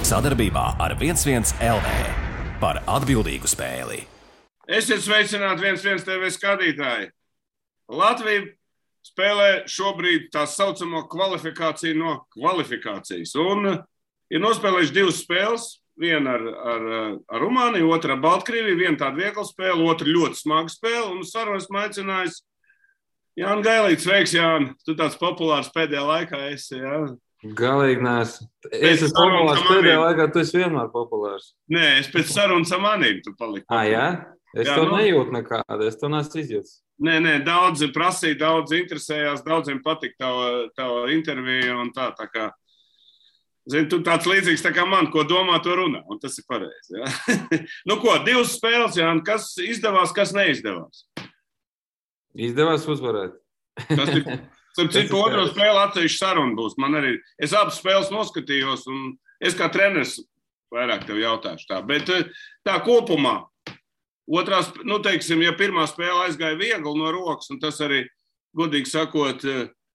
Sadarbībā ar 11 LV par atbildīgu spēli. Esiet sveicināti 11 TV skatītāji. Latvija spēlē šobrīd tā saucamo kvalifikāciju no kvalifikācijas. Un ir nospēlējuši divas spēles. Viena ar Rumāniju, otra ar Baltkrieviju. Viena tāda viegla spēle, otra ļoti smaga spēle. Un sarunas aicinājis Jānis Gailīts. Sveiks, Jāni. Tu tāds populārs pēdējā laikā esi, jā? Galīgi neesmu. Es esmu populārs pēdējā laikā, tu esi vienmēr populārs. Nē, es pēc sarunas ar manīm tu paliki. Jā? Es to nejūtu nekādu, es to neesmu izjūtis. Nē, daudzi prasīja, daudzi interesējās, daudziem patika tava intervija un tā kā. Zini, tu tāds līdzīgs tā kā man, ko domā, to runā, un tas ir pareizi. Ja? Nu ko, divas spēles, Jāni, kas izdevās, kas neizdevās? Izdevās uzvarēt. Tas ir, citu otro spēli atsevišķi saruna būs. Man arī, es abas spēles noskatījos, un es kā treneris vairāk tev jautāšu tā. Bet tā kopumā, otrās, nu teiksim, ja pirmā spēle aizgāja viegli no rokas, un tas arī, godīgi sakot,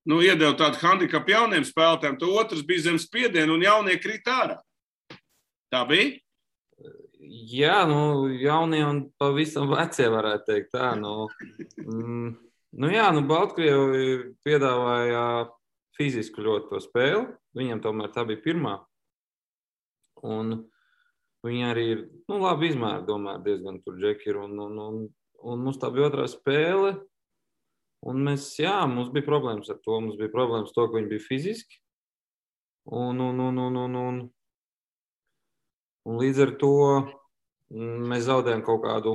iedeva tādu handikapu jauniem spēlētājiem, to otrs bija zem spiedienu un jaunie krīt ārā. Tā bija? Jā, jaunie un pavisam vecie varētu teikt tā. Baltkrievi piedāvāja fizisku ļoti to spēli. Viņam tomēr tā bija pirmā. Un viņi arī ir, labi izmēri, domāju, diezgan tur džeki ir. Un mums tā bija otrā spēle. Un mums bija problēmas ar to. Mums bija problēmas to, ka viņi bija fiziski. Un līdz ar to mēs zaudējam kaut kādu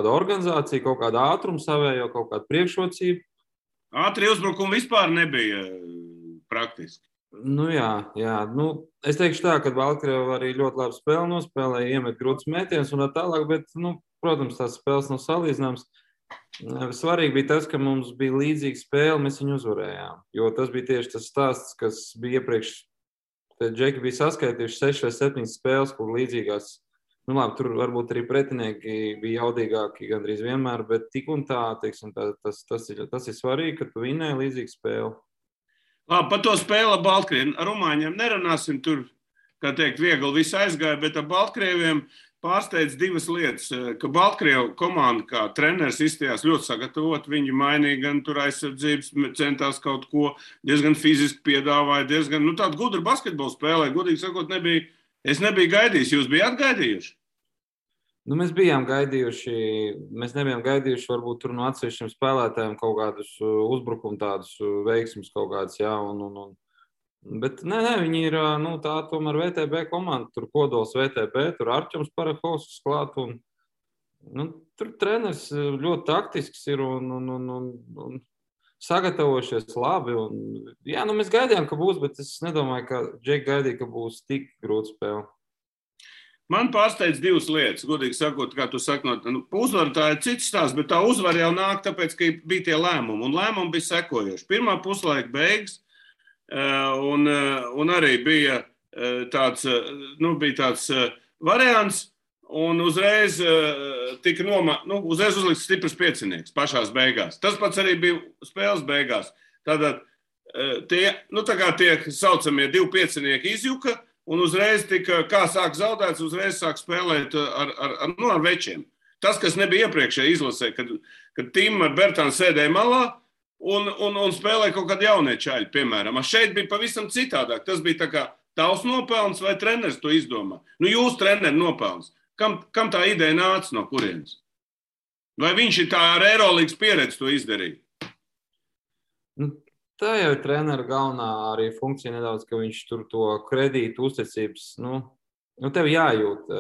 organizāciju, kaut kādu ātrumu savējo, kaut kādu priekšrocību. Ātri uzbrukumi vispār nebija praktiski. Jā. Es teikšu tā, ka Baltkrievi arī ļoti labi spēli nospēlēja, iemet grūtus mētienus un tā tālāk, bet, protams, tās spēles nav salīdzināmas. Svarīgi bija tas, ka mums bija līdzīga spēle, mēs viņu uzvarējām. Jo tas bija tieši tas stāsts, kas bija iepriekš. Tad džeki bija saskaitījuši 6 vai 7 spēles, kur līdzīgās. Tur varbūt arī pretinieki bija jaudīgāki gandrīz vienmēr, bet tik un tā, teiksim, tas ir svarīgi, ka tu vinēji līdzīgu spēli. Labi, par to spēli ar Baltkrieviem. Ar Rumāņiem nerunāsim tur, kā teikt, viegli viss aizgāja, bet ar Baltkrieviem pārsteidz divas lietas, ka Baltkrievu komanda kā treneris izstājās ļoti sagatavot, viņi mainīja gan tur aizsardzības, centās kaut ko, diezgan fiziski piedāvāja, diezgan, tādu gudru basketbolu spēlē, godīgi sakot, es nebiju gaidījis, jūs bijāt gaidījuši? Mēs bijām gaidījuši, mēs nebijām gaidījuši varbūt tur no atsevišķiem spēlētājiem kaut kādus uzbrukumu tādus veiksmus kaut kādus, jā, Bet viņi ir tā tomēr VTB komanda, tur kodols VTB, tur Arķums Parahovskis klāt, un tur treneris ļoti taktisks ir un sagatavojušies labi. Mēs gaidījām, ka būs, bet es nedomāju, ka džeki gaidīja, ka būs tik grūta spēle. Man pārsteidz divas lietas, godīgi sakot, kā tu saki, uzvara tā ir cits stāsts, bet tā uzvara jau nāk tāpēc, ka bija tie lēmumi, un lēmumi bija sekojoši. Pirmā puslaika beigas, un arī bija tāds variants, un uzreiz tika uzreiz uzlikts stiprs piecinieks pašās beigās. Tas pats arī bija spēles beigās. Tātad tie saucamie divi piecinieki izjuka, un uzreiz tika, kā sāk zaudēts, uzreiz sāk spēlēt ar večiem. Tas, kas nebija iepriekšēji izlasē, kad Tīma ar Bertānu sēdēja malā, un spēlēja kaut kādi jaunie čaļi, piemēram. Šeit bija pavisam citādāk. Tas bija tā kā tavs nopelns vai treneris to izdomā. Jūs treneri nopelns. Kam tā ideja nāca no kurienes? Vai viņš ir tā ar Eirolīgas pieredzi to izdarīja? Tā jau ir trenera galvenā arī funkcija nedaudz, ka viņš tur to kredītu uzticības, tev jājūt,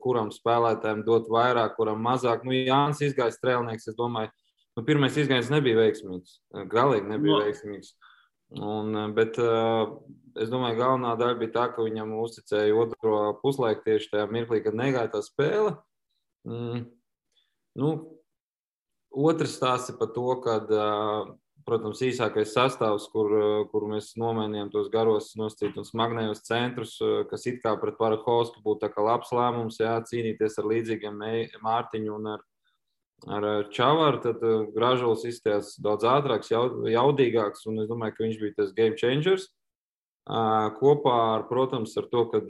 kuram spēlētājiem dot vairāk, kuram mazāk. Jānis izgājis strēlnieks, es domāju, pirmais izgājiens nebija veiksmīgs, galīgi nebija veiksmīgs. Bet es domāju, galvenā daļa bija tā, ka viņam uzticēja otro puslaiku tieši tajā mirklī, kad negāja tā spēle. Otrs stāsts ir par to, kad, protams, īsākais sastāvs, kur mēs nomainījām tos garos nosacīt un smagnējos centrus, kas it kā pret Parahovsku būtu tā kā labs lēmums, cīnīties ar līdzīgiem Mārtiņu un ar Čavaru, tad Gražulis izstājās daudz ātrāks, jaudīgāks, un es domāju, ka viņš bija tas game changers. kopā ar, protams, ar to, kad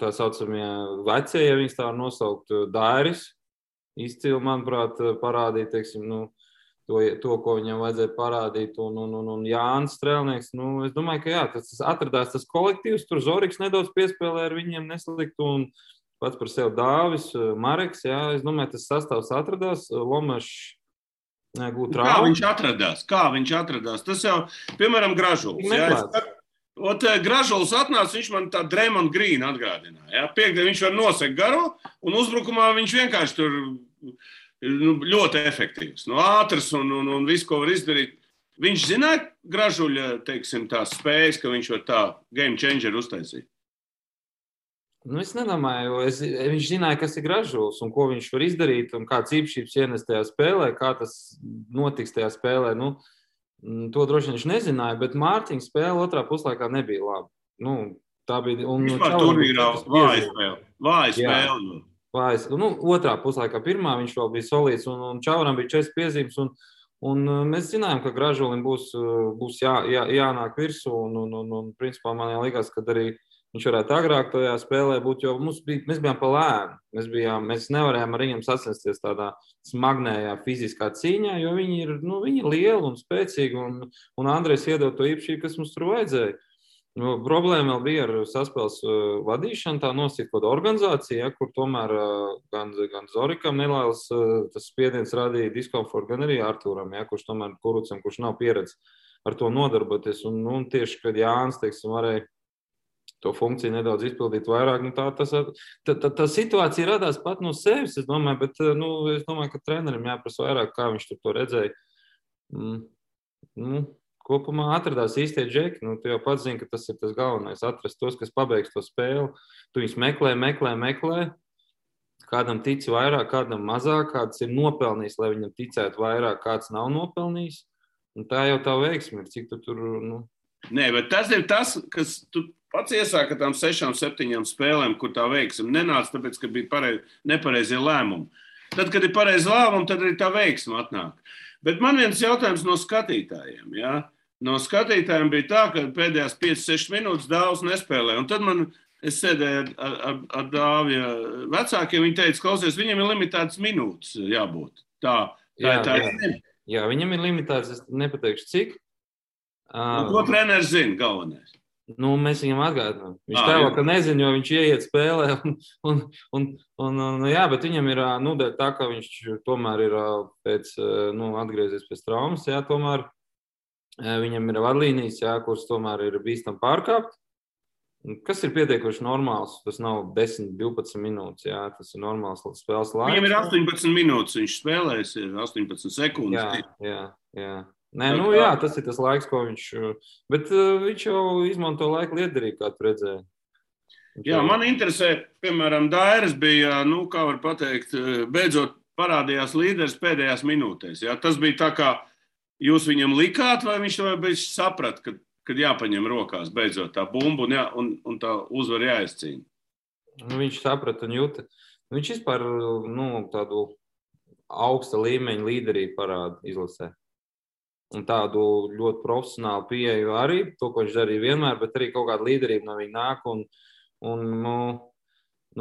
tā saucamie vecie, ja viņas tā var nosaukt, Dairis izcili, manuprāt, parādīja, teiksim, to, ko viņam vajadzēja parādīt, un Jānis Strēlnieks, es domāju, ka jā, tas atradās tas kolektīvs, tur Zoriks nedaudz piespēlē ar viņiem nesliktu, un pats par sevi Dāvis, Mareks, jā, es domāju, tas sastāvs atradās, Lomešs gūt traumu. Kā viņš atradās? Tas jau, piemēram, Gražuls, Gražuls atnāca, viņš man tā Draymond Green atgādināja, jā, piekdien viņš var nosegt garo, un uzbrukumā viņš vienkārši tur ļoti efektīvs, ātrs un visu, ko var izdarīt. Viņš zināja Gražuļa, teiksim, tās spējas, ka viņš var tā game changer uztaisīt? Es nedomāju, viņš zināja, kas ir Gražuls un ko viņš var izdarīt un kāds īpašības ienes tajā spēlē, kā tas notiks tajā spēlē. To droši vien viņš nezināja, bet Mārtiņa spēle otrā puslaikā nebija laba. Tā bija... Vispār turnīrā vāja spēle. Otrā puslaikā pirmā viņš vēl bija solīts un Čauram bija 4 piezīmes un mēs zinājām, ka Gražulim būs jānāk virsū un principā man liekas, ka arī viņš varētu agrāk tajā spēlē būt, jo mēs bijām pa lēnu. Mēs nevarējām ar viņiem sacensties tādā smagnējā fiziskā cīņā, jo viņi ir lieli un spēcīgi un Andrejs iedod to īpašību, kas mums tur vajadzēja. Problēma vēl bija ar saspēles vadīšanu, tā nosīt kaut organizācija, kur tomēr gan Zorikam nelēls tas spiediens radīja diskomfortu, gan arī Artūram, kurš tomēr Kurucam, kurš nav pieredze ar to nodarboties. Un tieši, kad Jānis, teiksim, varēja to funkciju nedaudz izpildīt vairāk, tā situācija radās pat no sevis, es domāju, bet es domāju, ka trenerim jāprasa vairāk, kā viņš to redzēja. Kopumā atradās īstie džeki. Tu jau pats zini, ka tas ir tas galvenais. Atrast tos, kas pabeigs to spēli. Tu viņus meklē. Kādam tici vairāk, kādam mazāk, kāds ir nopelnījis, lai viņam ticētu vairāk, kāds nav nopelnījis. Un tā jau tā veiksme ir, cik tu tur... Nē, bet tas ir tas, kas tu pats iesāka tām 6-7 spēlēm, kur tā veiksme nenāca, tāpēc, ka bija nepareizie lēmumi. Tad, kad ir pareizi lēmumi, tad arī tā veiksme atnāk. Bet man viens jautājums no skatītājiem, jā? No skatītājiem bija tā, ka pēdējās 5-6 minūtes Dāvs nespēlē. Un tad es sēdēju ar Dāvja vecākiem, viņi teica, klausies, viņam ir limitētas minūtes jābūt. Jā, viņam ir limitētas, es nepateikšu cik. Ko treneris zina galvenais? Mēs viņam atgādinām. Viņš tēlo, ka nezina, jo viņš ieiet spēlē. Jā, bet viņam ir tā, ka viņš tomēr ir atgriezies pēc traumas, jā, tomēr viņam ir vadlīnijas, jā, kuras tomēr ir bīstam pārkāpt. Kas ir pietiekoši normāls? Tas nav 10-12 minūtes, jā, tas ir normāls spēles laiks. Viņam ir 18 minūtes, viņš spēlēs, ir 18 sekundes. Jā. Jā, tas ir tas laiks, ko viņš... Bet viņš jau izmanto laiku lietderīgi, kā tu redzēji. Jā, man interesē, piemēram, Dairis bija, kā var pateikt, beidzot parādījās līderis pēdējās minūtēs. Jā. Tas bija tā, kā jūs viņam likāt, vai viņš to beidzot saprat, kad jāpaņem rokās beidzot tā bumba un tā uzvar jāizcīna? Viņš saprat un jūta. Viņš vispār tādu augsta līmeņa līderību parāda izlasē. Un tādu ļoti profesionālu pieeju arī, to, ko viņš darīja vienmēr, bet arī kaut kāda līderība no viņa nāk.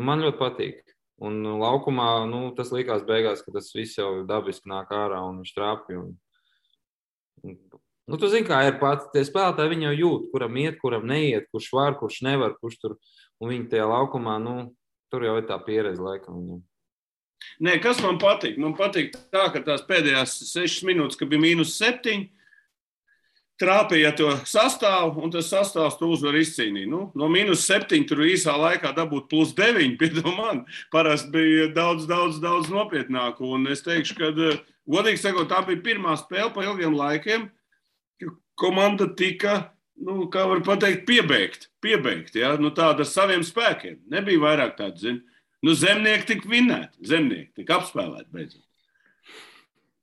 Man ļoti patīk. Un laukumā tas likās beigās, ka tas viss jau dabiski nāk ārā un viņš trāpja. Tu zini, kā ir pats. Tie spēlētāji viņi jau jūt, kuram iet, kuram neiet, kurš var, kurš nevar, kurš tur. Un viņi tajā laukumā, tur jau ir tā pieredze laikam viņam. Nē, kas man patīk? Man patīk tā, ka tās pēdējās 6 minūtes, kad bija -7, trāpīja to sastāvu, un tas sastāvs tu uzvar izcīnīt. No -7 tur īsā laikā dabūt +9, piedod man, parasti bija daudz nopietnāk. Un es teikšu, ka, godīgi sakot, tā bija pirmā spēle pa ilgiem laikiem, ka komanda tika, kā var pateikt, piebeigt, ja? Tāda ar saviem spēkiem. Nebija vairāk tādu, zini. Zemnieki tika vinēti, zemnieki tika apspēlēti beidzot.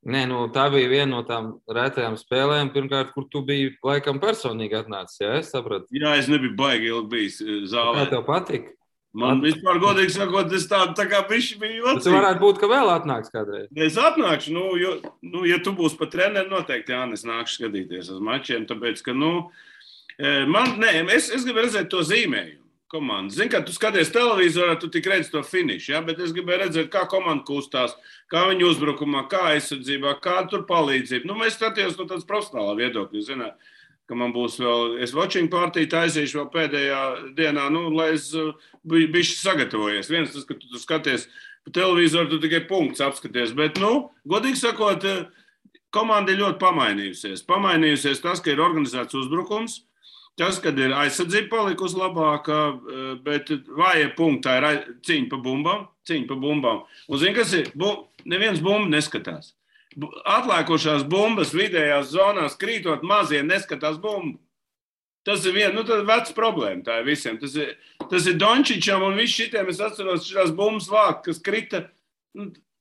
Nē, tā bija viena no tām rētajām spēlēm, pirmkārt, kur tu biji laikam personīgi atnācis, jā, es sapratu? Jā, es nebiju baigi ilgi bijis zālē. Kā tev patika? Man vispār, godīgi sakot, es tā kā bišķi biju jocīgi. Tu varētu būt, ka vēl atnāks kādreiz. Es atnākšu, ja tu būsi pa treneri, noteikti, Jānis, nākšu skatīties uz mačiem, tāpēc, ka, Es gribu redzēt to zīmējumu. Komanda. Zini, kad tu skaties televizorā, tu tik redzi to finišu, ja? Bet es gribēju redzēt, kā komanda kustās, kā viņa uzbrukumā, kā aizsardzībā, kā tur palīdzība. Nu, mēs skatījos no tāds profesionālā viedokļa, zināt, ka man būs vēl, es watching partiju taisīšu vēl pēdējā dienā, nu, lai es bišķi sagatavojies. Viens tas, ka tu skaties pa televizoru, tu tikai punkts apskaties, bet, nu, godīgi sakot, komanda ir ļoti pamainījusies. Pamainījusies tas, ka ir organizēts uzbrukums, tas, kad ir aizsardzība palikusi labāka, bet vājie punkti tā ir cīņa pa bumbām. Un zini, kas ir? Neviens bumbu neskatās. Atlēkošās bumbas vidējās zonās krītot mazie neskatās bumbu. Tas ir viena, tā ir veca problēma, tā ir visiem. Tas ir Dončičam un viss šitiem, es atceros šitās bumbas vākt, kas krita,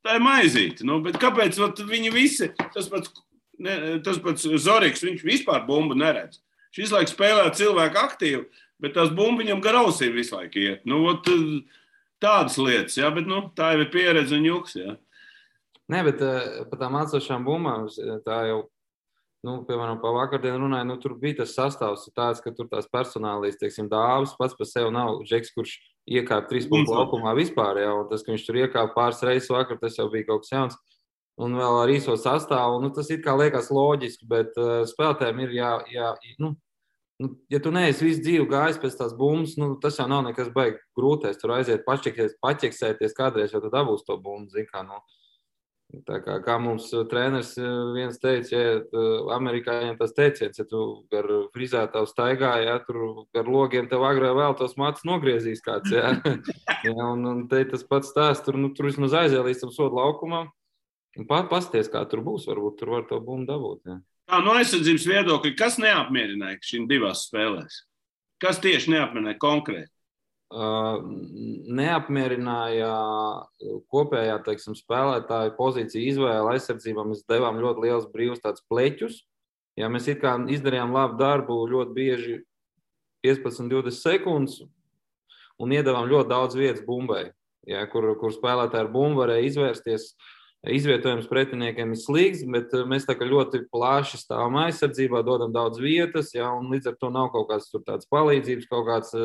tā ir maizīte. Bet kāpēc viņi visi, tas pats Zoriks, viņš vispār bumbu neredz. Šis laiks spēlē cilvēku aktīvi, bet tās bumbu viņam gar ausīm visu laiku iet. Tādas lietas, ja, bet tā jau ir pieredze un juks. Ja. Nē, bet par tām atsošām bumbām, tā jau, piemēram, pa vakardienu runāju, tur bija tas sastāvs tāds, ka tur tās personālīs, teiksim, Dāvis pats par sevi nav Džeks, kurš iekāp 3 punktu laukumā vispār, ja, un tas, ka viņš tur iekāp pāris reizes vakar, tas jau bija kaut kas jauns. Un vēl ar īso sastāvu, tas it kā liekas loģiski, bet spēlētājiem ir ja tu neesi visu dzīvi gājis pēc tās bumbas, tas jau nav nekas baigi grūtais. Tur aiziet paķeksēties kādreiz, jau tu dabūs to bumbu, zin kā, Tā kā mums treneris viens teica, ja amerikāņiem tas teiciens, ja tu gar frizētavu staigā, ja tur gar logiem tev agrāk vēl tos matus nogriezīs kāds, ja. Un te tas pats stāsts, tur vismaz aiziet līdz tam sodu laukumam. Un pasties, kā tur būs, varbūt tur var to bumbu dabūt. Ja. Tā, no aizsardzības viedokļa, kas neapmierināja šīm divās spēlēs? Kas tieši neapmierināja konkrēti? Neapmierināja kopējā, teiksim, spēlētāju pozīciju izvēle aizsardzībā. Mēs devām ļoti liels brīvs tāds pleķus. Ja mēs it kā izdarījām labu darbu ļoti bieži 15-20 sekundes un iedavām ļoti daudz vietas bumbai, ja, kur spēlētāji ar bumbu varēja izvērsties. Izvietojums pretiniekiem ir slīgs, bet mēs tā kā ļoti plaši stāvam aizsardzībā, dodam daudz vietas, ja, un līdz ar to nav kaut kāds tur tāds palīdzības, kaut kāds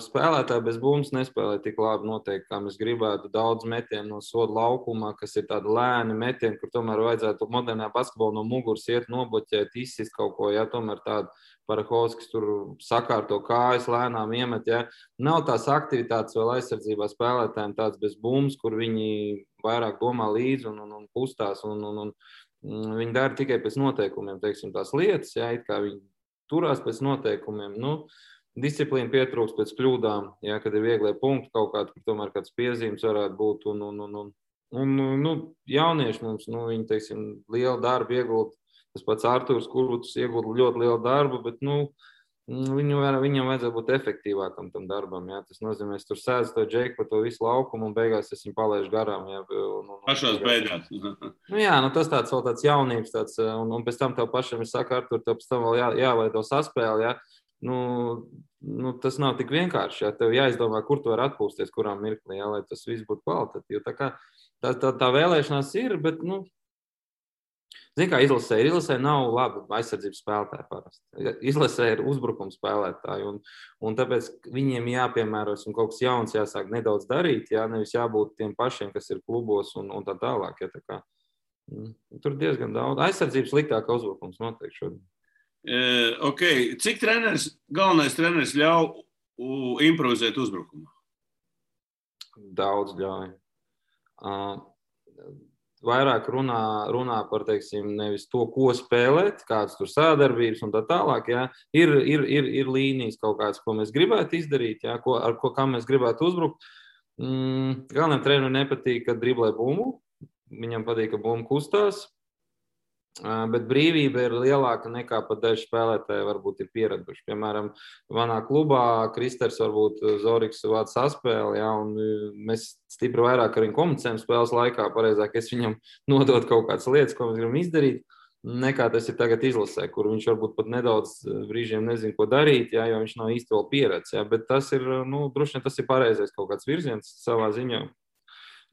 spēlētāji bez bumbas nespēlē tik labi noteikti, kā mēs gribētu. Daudz metienu no soda laukumā, kas ir tādi lēni metieni, kur tomēr vajadzētu modernā basketbolā no muguras iet, nobloķēt, izsist kaut ko, ja, tomēr tāda Parahovskis tur sakārto kājas, lēnām iemet, ja. Nav tās aktivitātes vēl aizsardzībā spēlētājiem tāds bez bumbas, kur viņi vairāk domā līdzi un kustās, un viņi dara tikai pēc noteikumiem, teiksim, tās lietas, ja, it kā viņi turās pēc noteikumiem, disciplīna pietrūks pēc kļūdām, ja, kad ir vieglie punkti kaut kādi, kur tomēr kāds piezīmes varētu būt, un jaunieši mums, viņi, teiksim, lielu darbu iegūt. Tas pats Artūrs Kurvuts iegūda ļoti lielu darbu, bet viņam vajadzētu būt efektīvākam tam darbam. Ja? Tas nozīmē, es tur sēdzu to Džeku pa to visu laukumu un beigās es viņu palaižu garām. Ja? Pašās beigās. Tas tāds vēl tāds jaunības, un pēc tam tev pašam ir saka, Artūr, tev pēc tam vēl jāveido saspēli. Ja? Tas nav tik vienkārši. Ja? Tev jāizdomā, kur tu vari atpūsties, kurā mirklī, ja? Lai tas viss būtu kvalitatīvi. Tā vēlēšanās ir, bet, Zini, kā izlasē nav labi aizsardzības spēlētāji parasti. Izlasē ir uzbrukuma spēlētāji, un tāpēc viņiem jāpiemēros un kaut kas jauns jāsāk nedaudz darīt, jā, nevis jābūt tiem pašiem, kas ir klubos un tā tālāk. Ja, tā kā, tur diezgan daudz. Aizsardzības sliktāka uzbrukums noteikti šodien. Okay. Cik galvenais treneris ļauj improvizēt uzbrukumu? Daudz ļauj. Vairāk runā par, teiksim, nevis to, ko spēlēt, kādas tur sādarbības un tā tālāk. Ja. Ir līnijas kaut kādas, ko mēs gribētu izdarīt, ja, kā mēs gribētu uzbrukt. Galvenajam trenerim nepatīk, kad driblē bumbu. Viņam patīk, ka bumba kustās. Bet brīvība ir lielāka nekā pat daži spēlētāji varbūt ir pieraduši. Piemēram, manā klubā Kristers varbūt Zoriks vāc saspēli, ja, un mēs stipri vairāk ar viņu komunicējam spēles laikā, pareizāk es viņam nodot kaut kādas lietas, ko mēs gribam izdarīt, nekā tas ir tagad izlasē, kur viņš varbūt pat nedaudz brīžiem nezin, ko darīt, ja, jo viņš nav īsti vēl pieredz. Ja, bet tas ir, droši vien tas ir pareizais kaut kāds virziens savā ziņā.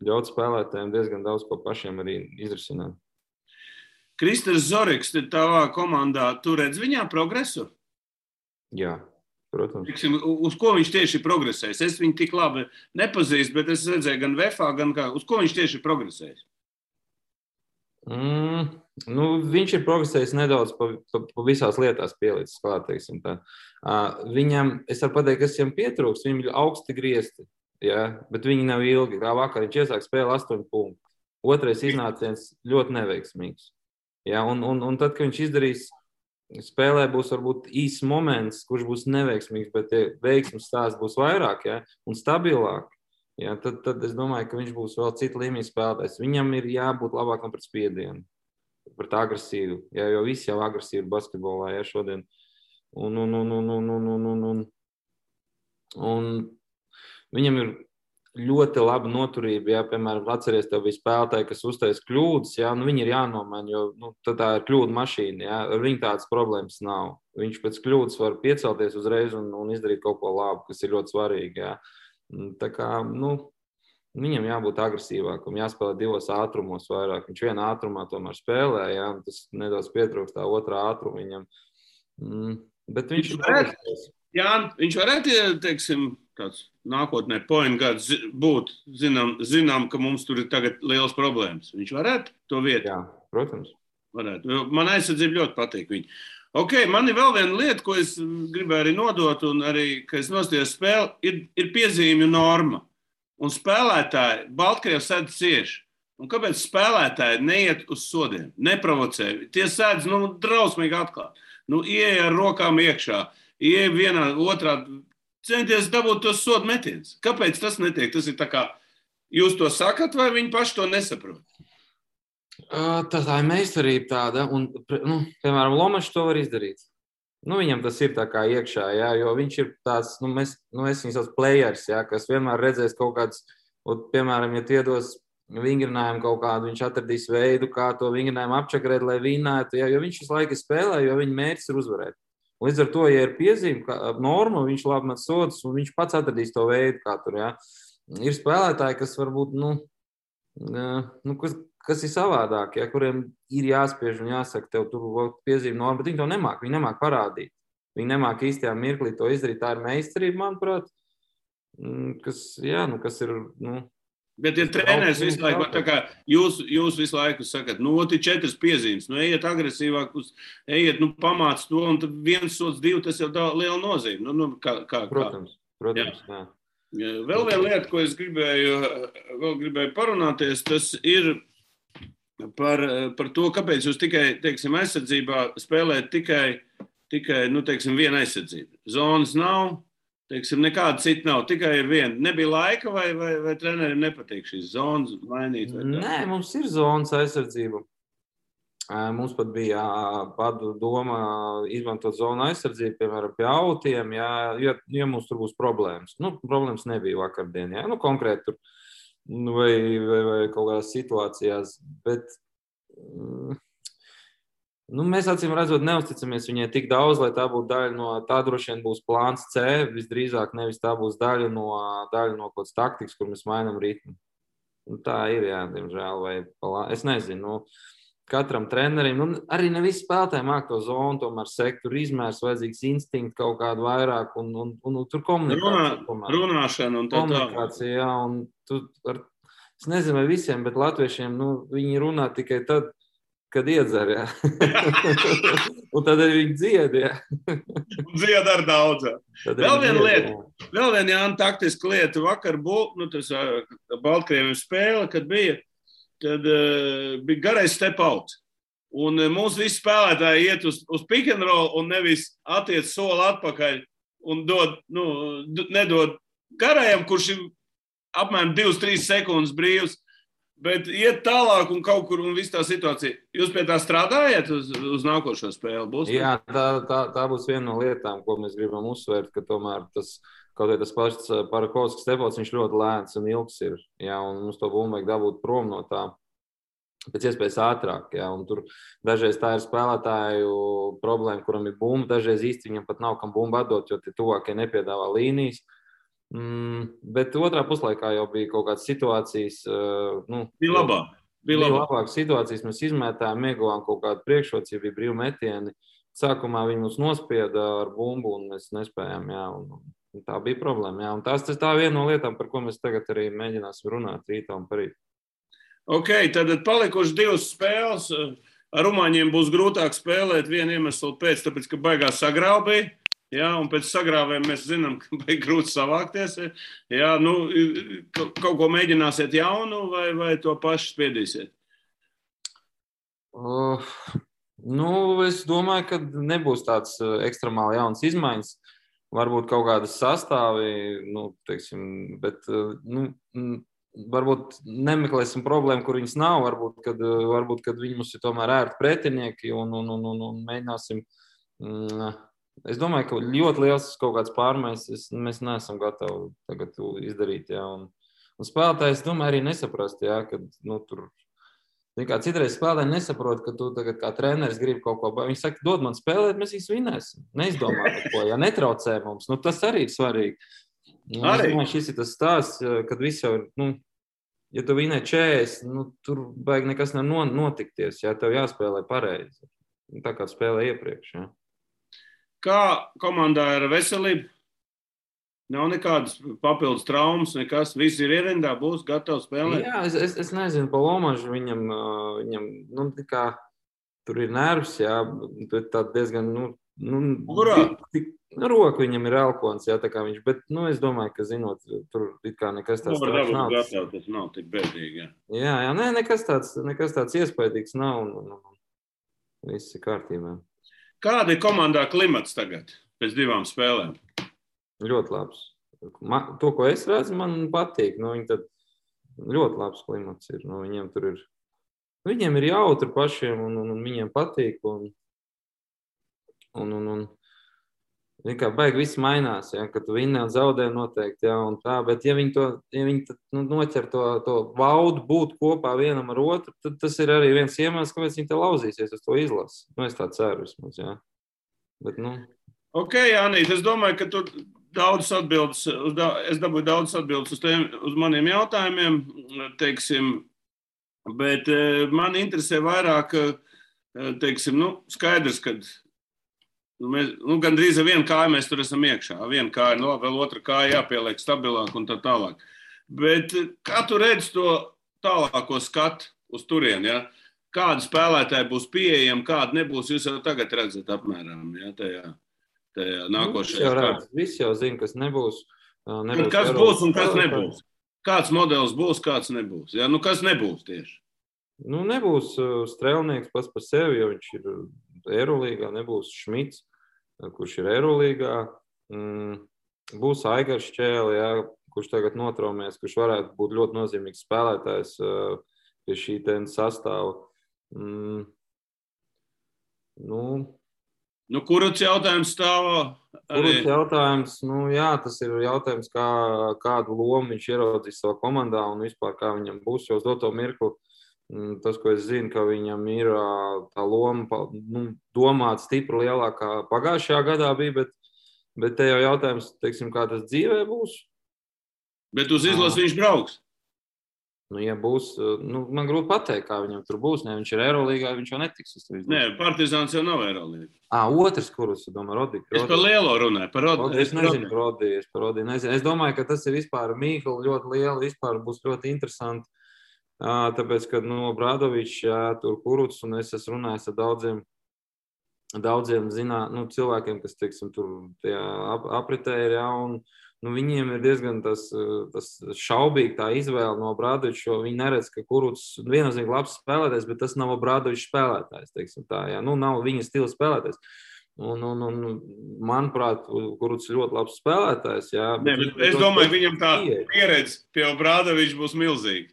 Ļaut spēlētājiem diezgan daudz ko pašiem arī izrisināt. Kristers Zoriks, tavā komandā, tu redz viņā progresu? Jā, protams. Tiksim, uz ko viņš tieši progresēs? Es viņu tik labi nepazīstu, bet es redzēju gan VFA, gan kā. Uz ko viņš tieši progresēs? Viņš ir progresējis nedaudz pa visās lietās pielicis klāt, teiksim tā. Viņam, es varu pateikt, kas viņam pietrūks, viņam ir augsti griezti, ja? Bet viņi nav ilgi. Kā vakar viņš iesāk spēli 8 punktu. Otrais iznāciens ļoti neveiksmīgs. Ja? Un tad, kad viņš izdarīs, spēlē būs varbūt īsts moments, kurš būs neveiksmīgs, bet veiksmes stāsts būs vairāk, ja? Un stabilāk. Ja, tad es domāju, ka viņš būs vēl cita līmeņa spēlētājs. Viņam ir jābūt labākam pret spiedienu, pret agresīvu, ja, jo visi jau agresīvi ir basketbolā, ja, šodien. Un viņam ir ļoti laba noturība, ja, piemēram, atceries, tev bija spēlētāji, kas uztais kļūdas, ja, viņi ir jānomaina, jo tā ir kļūda mašīna, ja, ar viņu tādas problēmas nav. Viņš pēc kļūdas var piecelties uzreiz un izdarīt kaut ko labu, kas ir ļoti svarīgi, ja. Tā kā, viņam jābūt agresīvākam, jāspēlē 2 ātrumos vairāk. Viņš vienā ātrumā tomēr spēlē, jā, tas nedaudz pietrūkst tā otrā ātruma viņam. Bet viņš viņš varētu, teiksim, tāds nākotnē point guards būt, zinām, ka mums tur ir tagad liels problēmas. Viņš varētu to vietu? Jā, protams. Varētu. Man aizsardzība ļoti patīk viņu. Ok, man ir vēl viena lieta, ko es gribēju arī nodot, un arī, ka es nostājos spēli, ir piezīmju norma. Un spēlētāji, Baltkrievs sēdz cieši. Un kāpēc spēlētāji neiet uz sodiem, neprovocē? Tie sēdz, drausmīgi atklāt. Ieej ar rokām iekšā, ieej vienā, otrā, centies dabūt tos sodu metienus. Kāpēc tas netiek? Tas ir tā kā, jūs to sakat, vai viņi paši to nesaprot? Tā ir meistarība tāda, un, piemēram, Lomačs to var izdarīt. Viņam tas ir tā kā iekšā, jā, jo viņš ir tāds, es viņu sauc players, jā, kas vienmēr redzēs kaut kāds, piemēram, ja tie dos vingrinājumu kaut kādu, viņš atradīs veidu, kā to vingrinājumu apčakarēt, lai vinētu, jā, jo viņš visu laiku spēlē, jo viņa mērķis ir uzvarēt. Līdz ar to, ja ir piezīme norma, viņš labi met sodus, un viņš pats atradīs to veidu, kā tur, jā. Ir spēlētāji, kas varbūt, kas ir savādāk, ja, kuriem ir jāspiež un jāsaka, tev tur piezīme norma, bet viņi to nemāk, viņi nemāk parādīt. Viņi nemāk īstajā mirklī to izdarīt, tā ir meistarība, manuprāt, kas ir, Bet ja treneris visu laiku, tā kā jūs visu laiku sakat, ir 4 piezīmes, ejiet agresīvāk, ejiet, pamāc to, un tad 1 sods 2, tas jau liela nozīme. Protams, jā. Vēl viena lieta, ko es gribēju parunāties, tas ir par to, kāpēc jūs tikai, teiksim, aizsardzībā spēlēt tikai teiksim, viena aizsardzība. Zonas nav, teiksim, nekāda cita nav, tikai ir viena. Nebija laika vai treneriem nepatīk šīs zonas mainīt? Nē, mums ir zonas aizsardzība. Mums pat bija doma izmantot zonu aizsardzību, piemēram, pie autiem, ja mums tur būs problēmas. Problēmas nebija vakardien, konkrēti tur. Vai kaut kādās situācijās, bet mēs acīm redzot neusticamies viņai tik daudz, lai tā būtu daļa no, tā droši vien būs plāns C, visdrīzāk nevis tā būs daļa no kaut kādas taktikas, kur mēs mainām ritmu. Tā ir, jā, diemžēl, es nezinu, katram trenerim, arī ne visi spēlētāji māk to zonu, tomēr sektoru izmērs, vajadzīgs instinkts kaut kādu vairāk, un tur komunikācija. Runāšana un tā. Komunikācija, jā, un es nezinu, vai visiem, bet latviešiem, viņi runā tikai tad, kad iedzer, jā. Un tad arī viņi dzied, jā. Dzied ar daudz. Vēl viena lieta, vēl viena Jāna taktiska lieta. Vakar tas Baltkrieviem spēle, kad bija, tad bija garais step out. Un mūsu visi spēlētāji iet uz pick and roll un nevis attiec soli atpakaļ un nedod garajam, kurš ir apmēram 2-3 sekundes brīvs, bet iet tālāk un kaut kur un viss tā situācija. Jūs pie tā strādājat uz nākošo spēli? Būs? Jā, tā būs viena no lietām, ko mēs gribam uzsvērt, ka tomēr kaut vai tas pats Parakovskis stepots, viņš ļoti lēns un ilgs ir. Jā, un mums to bumbu vajag dabūt prom no tā pēc iespējas ātrāk. Jā, un tur dažreiz tā ir spēlētāju problēma, kuram ir bumba, dažreiz īsti viņam pat nav kam bumbu atdot, jo tie tuvākie nepiedāvā līnijas. Bet otrā puslaikā jau bija kaut kādas situācijas. Bija labākas situācijas, mēs izmētājām, ieguvām kaut kādu priekšrocību, bija brīvu metieni. sākumā viņi mums nospieda ar bumbu, un mēs nespējām, jā, un tā bija problēma, jā. Un tā viena no lietām, par ko mēs tagad arī mēģināsim runāt rītā un parīt. Ok, tad palikuši 2 spēles. Ar rumāņiem būs grūtāk spēlēt vienu iemeslu pēc, tāpēc, ka baigās sagrāvbija. Jā, un pēc sagrāvēm mēs zinām, ka baigi grūti savākties. Jā, nu, kaut ko mēģināsiet jaunu vai to pašu spiedīsiet? Es domāju, ka nebūs tāds ekstremāli jauns izmaiņas. Varbūt kaut kādas sastāvi, teiksim, bet, varbūt nemeklēsim problēmu, kur viņas nav. Varbūt, kad viņi mums ir tomēr ērti pretinieki un mēģināsim. Es domāju, ka ļoti liels kaut kāds pārmaiņas mēs neesam gatavi tagad izdarīt. Jā, un spēlētājs, domāju, arī nesaprast, jā, ka tur. Citreiz spēlētāji nesaprot, ka tu tagad kā treneris gribi kaut ko. Viņi saka, dod man spēlēt, mēs viņus vinēsim. Neizdomā neko, ja netraucē mums. Tas arī ir svarīgi. Es domāju, šis ir tas stāsts, kad viss jau ir, ja tu vinē 40, tur baigi nekas nav notikties, ja tev jāspēlē pareizi. Tā kā spēlē iepriekš. Ja. Kā komandā ir veselība? Nav nekādas papildus traumas, nekas. Visi ir ierindā, būs gatavi spēlēt. Jā, es nezinu, pa Lomažu viņam tur ir nervs, jā, bet tā diezgan, Kurā? Roka viņam ir elkons, jā, tā kā viņš, bet, es domāju, ka zinot, tur it kā nekas tāds nav. Tas nav tik bēdīgi, jā. Jā, nekas tāds iespaidīgs nav, un viss ir kārtībā. Kāda ir komandā klimats tagad, pēc 2 spēlēm? Ļoti labs. To, ko es redzu, man patīk. Viņi tad ļoti labs klimats ir. Viņiem tur ir. Viņiem ir jautri pašiem, un viņiem patīk. Un kā baigi viss mainās, ja, kad tu vinē un zaudē noteikti, ja, un tā. Bet ja viņi noķer to baudu būt kopā vienam ar otru, tad tas ir arī viens iemesls, kāpēc viņi te lauzīsies uz to izlasi. Es tā ceru vismaz, jā. Bet, Ok, Jānīt, es domāju, ka tu es dabūju daudz atbildes uz maniem jautājumiem, teiksim, bet man interesē vairāk, teiksim, skaidrs, ka mēs, gandrīz ar vienu kāju mēs tur esam iekšā. Viena kāja, vēl otra kāja jāpieliek stabilāk un tā tālāk. Bet kā tu redzi to tālāko skatu uz turieni, ja? Kādi spēlētāji būs pieejami, kādi nebūs, jūs jau tagad redzat apmēram, ja, tajā nākošajā. Visi jau zina, kas nebūs. Kas būs un kas nebūs? Kāds modelis būs, kāds nebūs? Ja? Kas nebūs tieši? Nebūs Strēlnieks pats par sevi, jo viņš ir Eirolīgā, nebūs Šmits, kurš ir Eirolīgā. Būs Aigars Šķēle, ja, kurš tagad notraumēs, kurš varētu būt ļoti nozīmīgs spēlētājs pie šī sastāva. Kuruts jautājums stāv? Kuruts jautājums, jā, tas ir jautājums, kādu lomu viņš ieraudzīs savā komandā un vispār kā viņam būs, jo uz doto mirkli. Tas, ko es zinu, ka viņam ir tā loma domāt stipri lielākā pagājušajā gadā bija, bet te jau jautājums, teiksim, kā tas dzīvē būs. Bet uz izlasi viņš brauks? Ja būs, man grūti pateikt, kā viņam tur būs. Ne, viņš ir Eirolīgā, viņš jau netiks. Nē, Partizāns jau nav Eirolīgā. Otrs, kurus, domāju, Rodi. Es par lielo runāju, par Rodi. Es nezinu, Rodi, Es domāju, ka tas ir vispār Mīhla ļoti liela, vispār būs ļoti interesanti. Tāpēc, kad Brādovičs, tur Kuruts, un es esmu runājis ar daudziem cilvēkiem, kas, teiksim, tur apritē ir, un viņiem ir diezgan tas šaubīgi tā izvēle no Brādoviča, jo viņi neredz, ka Kuruts viennozīmīgi labs spēlētājs, bet tas nav Brādoviča spēlētājs, teiksim tā, nav viņa stila spēlētājs. Un manuprāt, Kuruts ir ļoti labs spēlētājs, Es domāju, viņam tā pieredze pie Brādoviča būs milzīga.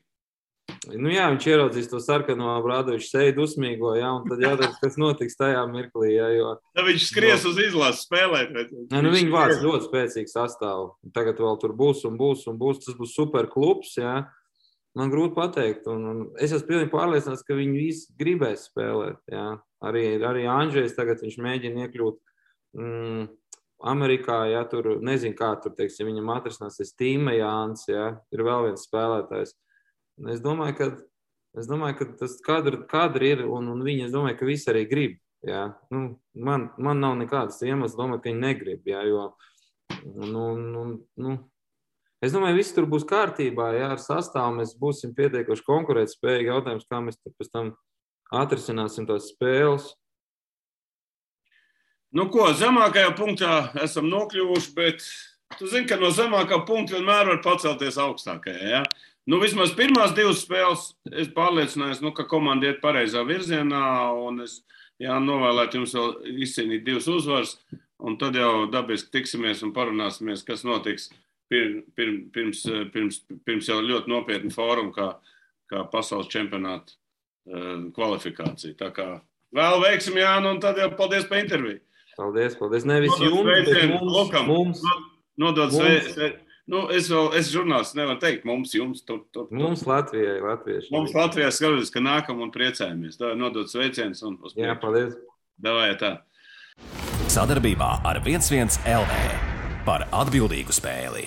Jā, viņš ieraudzīs to sarkano Brādoviča seju dusmīgo, un tad jautājums, kas notiks tajā mirklī, jo... Tad viņš skries uz izlases spēlēt. Viņi vāc ļoti spēcīgu sastāvu. Tagad vēl tur būs, tas būs super klubs, Man grūti pateikt, un es esmu pilnīgi pārliecināts, ka viņi visi gribēs spēlēt, Arī Andžejs tagad viņš mēģina iekļūt Amerikā, tur nezinu, kā tur, teiksim, viņam atrisināsies Tīma Jāns, ir vēl viens spēlētājs. Es domāju, ka tas kadri ir, un viņi, es domāju, ka visi arī grib. Jā, man nav nekādas iemesls domāt, ka viņi negrib, jā, jo, es domāju, viss tur būs kārtībā, jā, ar sastāvu mēs būsim pietiekuši konkurētspējīgi. Jautājums, kā mēs tur pēc tam atrisināsim tās spēles. Nu ko, zemākajā punktā esam nokļuvuši, bet tu zini, ka no zemākā punkta vienmēr var pacelties augstākajā, jā? Nu, vismaz pirmās 2 spēles es pārliecinājos, ka komanda iet pareizā virzienā, un es novēlētu jums vēl izcīnīt 2 uzvaras, un tad jau dabiski tiksimies un parunāsimies, kas notiks pirms jau ļoti nopietnu fórumu, kā pasaules čempionāta kvalifikācija. Tā kā vēl veiksim, Jāni, un tad jau paldies par interviju. Paldies. Nevis jums, bet mums. Nodod sveicienu. Nu, es žurnālists nevaru teikt, mums, jums. Mums Latvijai, latvieši. Mums Latvijai skatos, ka nākam un priecājamies. Tā nodod sveicienus un uz priekšu. Jā, paldies. Davai, tā. Sadarbībā ar 11 LV par atbildīgu spēli.